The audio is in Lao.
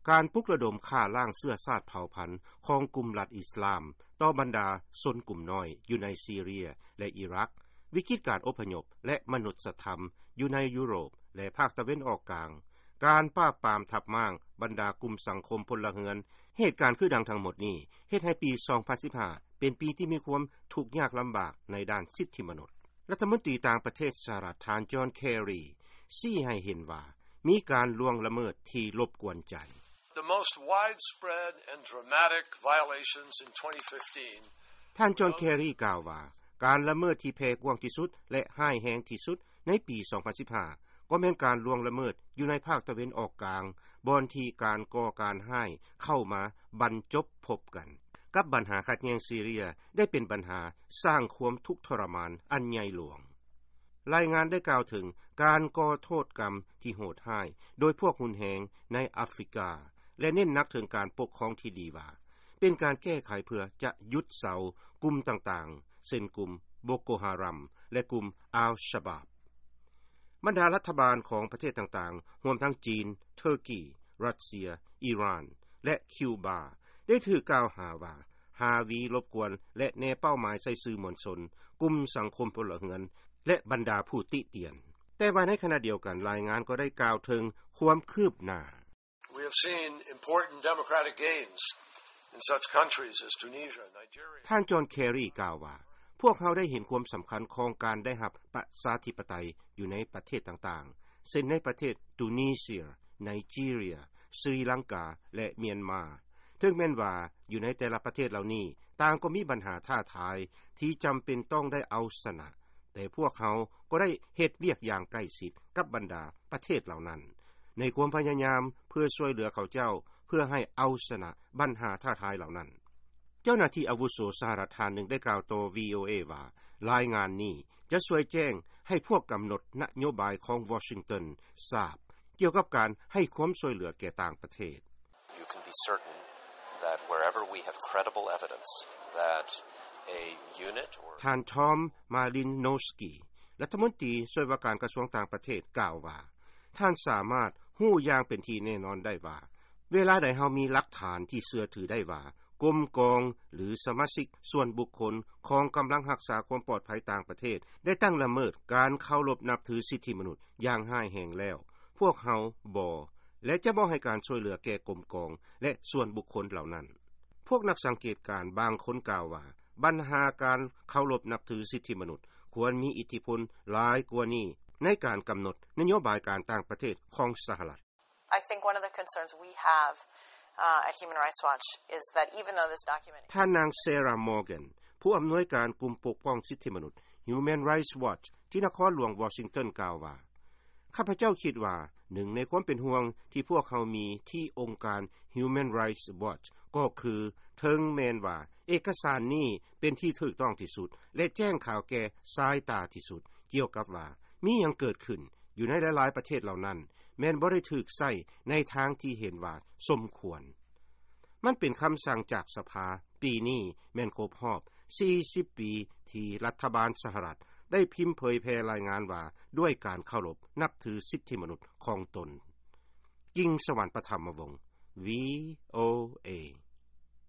ການປຸກລະດົມຂ້າລ້າງເຊື້ອຊາດເຜົ່າພັນຂອງກຸ່ມລັດອິສລາມຕໍ່ບັນດາຊົນກຸ່ມນ້ອຍຢູ່ໃນຊີເຣຍ ແລະ ອີຣັກ, ວິກິດການອົບພະຍົບ ແລະ ມະນຸດສະທຳຢູ່ໃນຢູໂຣບ ແລະ ພາກຕາເວັນອອກກາງ, ການປາບປາມທັບມ້າງບັນດາກຸ່ມສັງຄົມພົນລະເຮືອນ, ເຫດການຄືດັ່ງທັງໝົດນີ້ ເຮັດໃຫ້ປີສອງພັນສິບຫ້າເປັນປີທີ່ມີຄວາມທຸກຍາກລຳບາກໃນດ້ານສິດທິມະນຸດ. ລັດຖະມົນຕີຕ່າງປະເທດສະຫະລັດ ທ່ານ ຈອນ ແຄຣີ ຊີ້ໃຫ້ເຫັນວ່າ ມີການລ່ວງລະເມີດທີ່ລົບກວນໃຈ. The most widespread and dramatic violations in twenty fifteen. ທ່ານ ຈອນ ແຄຣີ ກ່າວວ່າ ການລະເມີດທີ່ແຜ່ກວ້າງທີ່ສຸດ ແລະ ຮ້າຍແຮງທີ່ສຸດໃນປີສອງພັນສິບຫ້າ ກໍແມ່ນການລ່ວງລະເມີດຢູ່ໃນພາກຕາເວັນອອກກາງ, ບ່ອນທີ່ການກໍ່ການຮ້າຍເຂົ້າມາບັນຈົບພົບກັນ ກັບບັນຫາຂັດແຍ່ງຊີເຣຍ ໄດ້ເປັນບັນຫາສ້າງຄວາມທຸກທໍລະມານອັນໃຫຍ່ຫຼວງ. ລາຍງານໄດ້ກ່າວເຖິງການກໍ່ໂທດກຳທີ່ໂຫດຮ້າຍໂດຍພວກຮຸນແຮງໃນອາຟຣິກາ ແລະ ເນັ້ນໜັກເຖິງການປົກຄອງທີ່ດີວ່າ ເປັນການແກ້ໄຂເພື່ອຈະຢຸດເຊົາກຸ່ມຕ່າງໆ ເຊັ່ນກຸ່ມໂບໂກຮາຣາມ ແລະ ກຸ່ມອາລຊະບາບ. ບັນດາລັດຖະບານຂອງປະເທດຕ່າງໆ ຮວມທັງຈີນ, ເທີກີ, ຣັດເຊຍ, ອີຣານ ແລະ ຄິວບາ ໄດ້ຖືກກ່າວຫາວ່າ ຮາວີລົບກວນ ແລະ ແນເປົ້າໝາຍໃສ່ສື່ມວນຊົນ, ກຸ່ມສັງຄົມພົນລະເຮືອນ ແລະ ບັນດາຜູ້ຕິຕຽນ. ແຕ່ວ່າໃນຂະນະດຽວກັນ, ລາຍງານກໍໄດ້ກ່າວເຖິງຄວາມຄືບໜ້າ. We have seen important democratic gains in such countries as Tunisia, Nigeria. ທ່ານ ຈອນ ແຄຣີ ກ່າວວ່າ ພວກເຮົາໄດ້ເຫັນຄວາມສຳຄັນຂອງການໄດ້ຮັບປະຊາທິປະໄຕຢູ່ໃນປະເທດຕ່າງໆ ເຊັ່ນໃນປະເທດຕູນີເຊຍ, ໄນຈີເຣຍ, ສຣີລັງກາ ແລະ ມຽນມາ. ເຖິງແມ່ນວ່າຢູ່ໃນແຕ່ລະປະເທດເຫຼົ່ານີ້ ຕ່າງກໍມີບັນຫາທ້າທາຍທີ່ຈຳເປັນຕ້ອງໄດ້ເອົາຊະນະ, ແຕ່ພວກເຮົາກໍໄດ້ເຮັດວຽກຢ່າງໃກ້ຊິດກັບບັນດາປະເທດເຫຼົ່ານັ້ນ ໃນຄວາມພະຍາຍາມເພື່ອຊ່ວຍເຫຼືອເຂົາເຈົ້າ ເພື່ອໃຫ້ເອົາຊະນະບັນຫາທ້າທາຍເຫຼົ່ານັ້ນ. ເຈົ້າໜ້າທີ່ອາວຸໂສສະຫະລັດທ່ານໜຶ່ງໄດ້ກ່າວຕໍ່ ວີໂອເອ ວ່າ ລາຍງານນີ້ຈະຊ່ວຍແຈ້ງໃຫ້ພວກກຳນົດນະໂຍບາຍຂອງວໍຊິງຕັນຊາບ ກ່ຽວກັບການໃຫ້ຄວາມຊ່ວຍເຫຼືອແກ່ຕ່າງປະເທດ. You can be certain that wherever we have credible evidence that a unit or ທ່ານ Tom Malinowski ລັດຖະມົນຕີຊ່ວຍວ່າການກະຊວງຕ່າງປະເທດ ກ່າວວ່າ ທ່ານສາມາດຮູ້ຢ່າງເປັນທີ່ແນ່ນອນໄດ້ວ່າ ເວລາໃດເຮົາມີຫຼັກຖານທີ່ເຊື່ອຖືໄດ້ວ່າ ກົມກອງ ຫຼື ສະມາຊິກສ່ວນບຸກຄົນຂອງກຳລັງຮັກສາຄວາມປອດໄພຕ່າງປະເທດ ໄດ້ຕັ້ງລະເມີດການເຄົາລົບນັບຖືສິດທິມະນຸດຢ່າງຮ້າຍແຮງແລ້ວ, ພວກເຮົາບໍ່ ແລະ ຈະບໍ່ໃຫ້ການຊ່ວຍເຫຼືອແກ່ກົມກອງ ແລະ ສ່ວນບຸກຄົນເຫຼົ່ານັ້ນ. ພວກນັກສັງເກດການບາງຄົນກ່າວວ່າ ບັນຫາການເຄົາລົບນັບຖືສິດທິມະນຸດ ຄວນມີອິດທິພົນຫຼາຍກວ່ານີ້ໃນການກຳນົດນະໂຍບາຍການຕ່າງປະເທດຂອງສະຫະລັດ. I think one of the concerns we have, uh, at Human Rights Watch is that even though this document ທ່ານນາງ ເຊຣາ ມໍແກນ ຜູ້ອຳນວຍການກຸ່ມປົກປ້ອງສິດທິມະນຸດ Human Rights Watch ທີ່ນະຄອນຫຼວງວໍຊິງຕັນ ກ່າວວ່າ ຂ້າພະເຈົ້າຄິດວ່າ ໜຶ່ງໃນຄວາມເປັນຫ່ວງທີ່ພວກເຮົາມີທີ່ອົງການ Human Rights Watch ກໍຄື ເຖິງແມ່ນວ່າເອກະສານນີ້ເປັນທີ່ຖືກຕ້ອງທີ່ສຸດ ແລະ ແຈ້ງຂ່າວແກ່ສາຍຕາທີ່ສຸດ ກ່ຽວກັບວ່າມີຫຍັງເກີດຂຶ້ນຢູ່ໃນຫຼາຍໆປະເທດເຫຼົ່ານັ້ນ ແມ່ນບໍ່ໄດ້ຖືກໃຊ້ໃນທາງທີ່ເຫັນວ່າສົມຄວນ. ມັນເປັນຄຳສັ່ງຈາກສະພາ. ປີນີ້ແມ່ນຄົບຮອບສີ່ສິບປີທີ່ລັດຖະບານສະຫະລັດໄດ້ພິມເຜີຍແຜ່ລາຍງານວ່າ ດ້ວຍການເຄົາລົບນັບຖືສິດທິມະນຸດຂອງຕົນ. ກິງສະຫວັນ ປະຖຳມະວົງ ວີໂອເອ.